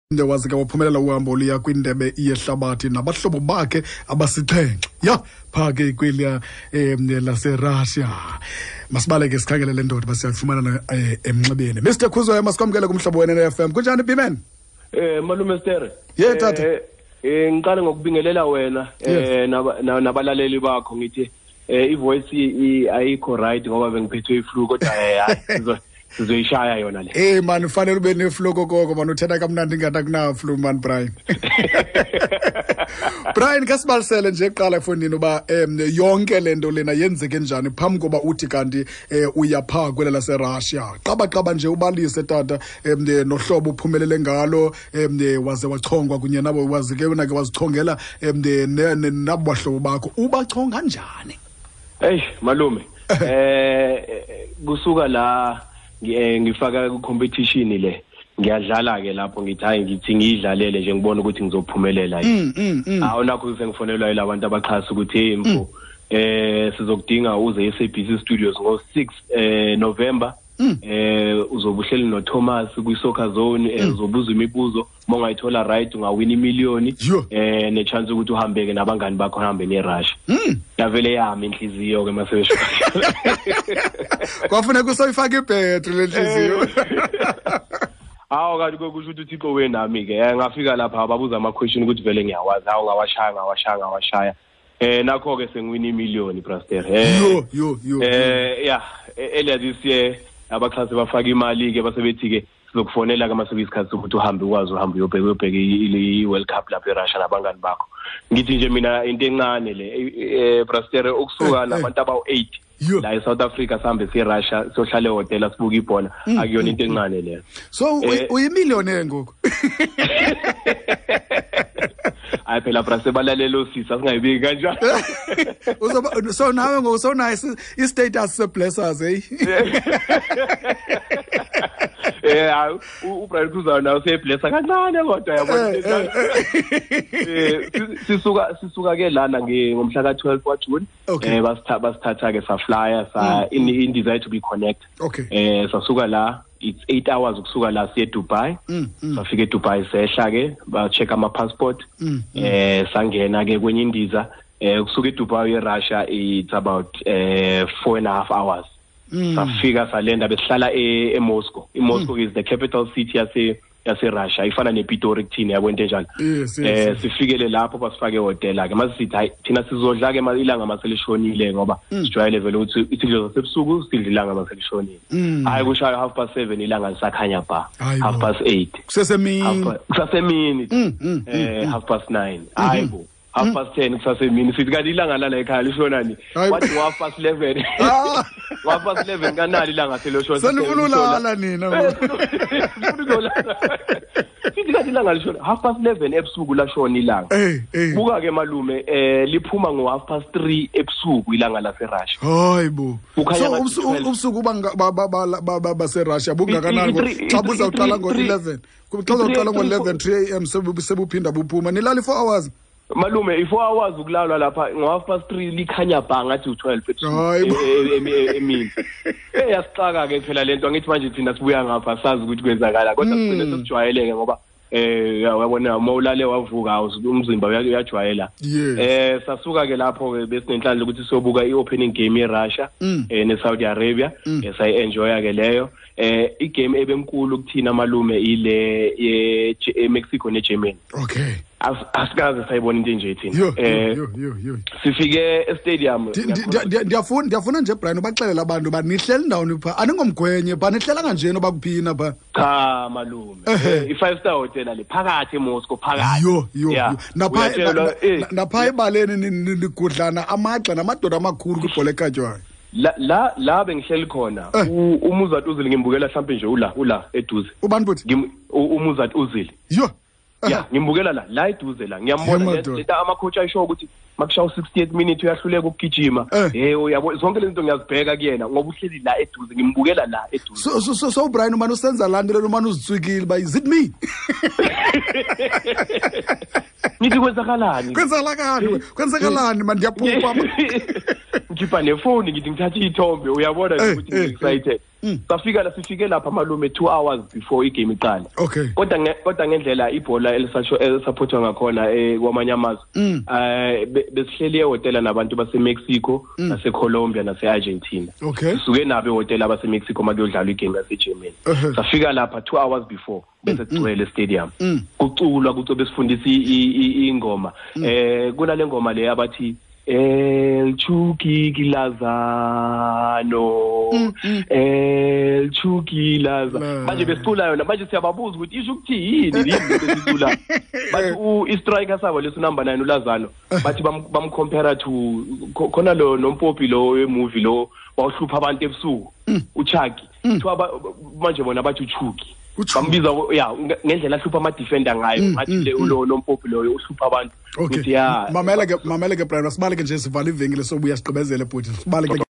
Waze ke waphumelela uhambo oluya kwindebe yehlabathi nabahlobo bakhe abasixhenxe ya phaa ke kweliya laseRussia. Masibaleke sikhangele le ndoda basiyafumana emnxebeni. Mr Khuzwayo, masikwamkele kumhlobo wena FM. Kunjani, Biman? Malume Ster. Ye tata. Ngiqale ngokubingelela wena nabalaleli bakho, ngithi ivoice ayikho right ngoba bengiphethwe iflu, kodwa hayi, sizoyishaya yona le. Hey man, ufanele ube neflu kokoko man, uthetha kamnandi ngathi akunaflu man, Brian. Brian, kasibalisele nje kuqala efowunini uba yonke le nto lena yenzeke njani phambi koba uthi kanti uya phaa kwela laseRussia. Qabaqaba nje ubalise tata nohlobo uphumelele ngalo, waze wachongwa kunye nabo, waze ke wena ke wazichongela nabo bahlobo bakho. Ubachonga njani? Hey malume, kusuka la ngifaka ku competition le, ngiyadlala ke lapho, ngithi hayi, ngithi ngiyidlalele nje ngibone ukuthi ngizophumelela yini. Awu, nakho sengifonelwa yilabantu abaxhasa ukuthi hey mfo, sizokudinga uze e-SABC Studios ngo-6 November, uzobe uhleli no-Thomas kwi-Soccer Zone, uzobuza imibuzo, uma ungayithola right ungawina imiliyoni ne-chance ukuthi uhambeke nabangani bakho, uhambe neRussia. Yavele yami inhliziyo ke masebesho. Kwafuneka usoyifaka ibhetri le nhliziyo. Hawu, kanti kusho ukuthi uThixo wenami ke. Ngafika lapha babuza ama-question ukuthi vele ngiyawazi. Hawu, ngawashaya, ngawashaya, ngawashaya. Nakho ke sengiwina imiliyoni, Braster. Yo yo yo. Yeah, earlier this year abaxhasi bafaka imali ke, basebethi ke sizokufonela ke mase kuyisikhathi sokuthi uhambe, ukwazi uhambe uyobheka i-World Cup lapha eRussia nabangani bakho. Ngithi nje mina into encane le, Braster, ukusuka nabantu abawu-8 la eSouth Africa sihambe siye eRussia, siyohlala ehhotela, sibuka ibhola, akuyona into encane leyo. So uyimillionaire ngoku? Hayi phela Braster, balalela osisi, asingayibiki kanjalo. Uzoba so nawe ngoku sowunayo i-status se-blessers, hey. Hayi, uBrian Khuzwayo nawe useyiblessa kancane kodwa, yabona. Sisuka ke lana ngomhla ka-12 kwaJune. Basithatha ke, saflya sa indiza yethu bi-connect. Sasuka la, it's 8 hours ukusuka la siye eDubai. Safika eDubai, sehla ke, ba check ama passport. Sangena ke kwenye indiza, kusuka eDubai eRussia it's about 4.5 hours. Safika, salenda, besihlala eMoscow. IMoscow is the capital city yase Russia, ifana nePitori kuthina, yabo, into enjalo. Sifikele lapho, basifake ehhotela ke, mase sithi hayi, thina sizodla ke ilanga maselishonile, ngoba sijwayele vele ukuthi isidlo zasebusuku sidla ilanga maselishonile. Hayi, kushaya 7:30, ilanga lisakhanya ba. 8:30. Kusesemini. Kusasemini. 9:30, hayi bo, 10:30, kusasemini. Sithi kanti ilanga lala ekhaya lishonani? Wathi 11:30, 11:30 kanali ilanga seloshona. Senifuna ulala nina. Sithi kanti ilanga lishona 11:30 ebusuku, lashona ilanga. Buka ke malume, liphuma ngo 3:30 ebusuku ilanga laseRussia. Hayi bo, so ubusuku baseRussia bungakanani xa buzawuqala ngo-11, xa uzawuqala ngo-11, 3 a.m. sebuphinda buphuma, nilala i-4 hours? Malume, i-4 hours ukulalwa lapha ngo 3:30, likhanya bha ngathi u-12 emini. Yasixaka ke phela lento, angithi manje thina sibuya ngapha sazi ukuthi kwenzakala, kodwa sigcine sesijwayeleke ngoba uyabona uma ulale wavuka umzimba uyajwayela. Sasuka ke lapho ke, besinenhlanhla ukuthi siyobuka i-opening game yeRussia neSaudi Arabia, sayi-enjoya ke leyo. Igame ebenkulu kuthina malume ile ye Mexico neGermany. Asikaze sayibona into enje thina. Sifike estadium. Ndiyafuna nje, Brian, ubaxelela abantu uba nihleli ndawoni phaa, aningomgwenye phaa, nihlela kanjeni oba kuphina phaa? Cha malume, i-five star hotel le phakathi eMoscow phakathi. Yo yo yo, napha ebaleni nigudlana amagxa namadoda amakhulu kwibhola ekhatywayo. La bengihleli khona, uMesut Ozil ngimbukela mhlambe nje ula eduze. Ubani futhi? UMesut Ozil. Yo. Ya, ngimbukela la eduze la, ngiyambona leta ama-coach ayisho ukuthi makushawa 68 minute uyahluleka ukugijima. Uyabo, zonke lezi zinto ngiyazibheka kuyena ngoba uhleli la eduze, ngimbukela la eduze. So Brian, umane usenza laa nto lena, umane uzitswikile uba is it me? Ngithi kwenzakalani? Kwenzakalani, kwenzakalani man, ndiyaphupha? Ngikhipha nefoni, ngithi ngithathe iy'thombe, uyabona nje ukuthi ngi-excited. Safika la, sifike lapha malume 2 hours before igame iqala. Kodwa ngendlela ibhola elisupportwa ngakhona kwamanye amazwe, besihleli ehotela nabantu baseMexico, naseColombia, nase-Argentina. Sisuke nabo ehotela abaseMexico makuyodlalwa igame yaseGermany. Safika lapha 2 hours before, bese kugcwele stadium, kuculwa, kuco besifundisa ingoma, kunale ngoma le abathi El Chucky Lozano, El Chucky Lozano. Manje besicula yona, manje siyababuza ukuthi isho ukuthi yini yini lesicula. Bathi i-striker sabo leso number 9 uLozano, bathi bamcompare to khona lo nompopi lo wemovie lo bawuhlupha abantu ebusuku, uChucky. Kuthiwa manje bona bathi uChucky, bambiza ya ngendlela ahlupha ama-defender ngayo, ngathi le lo nompopi loyo uhlupha abantu. Okay, mamela ke, mamela ke Brian, sibaleke nje, sivala ivenkile, sobuya sigqibezele bhuti, sibaleke.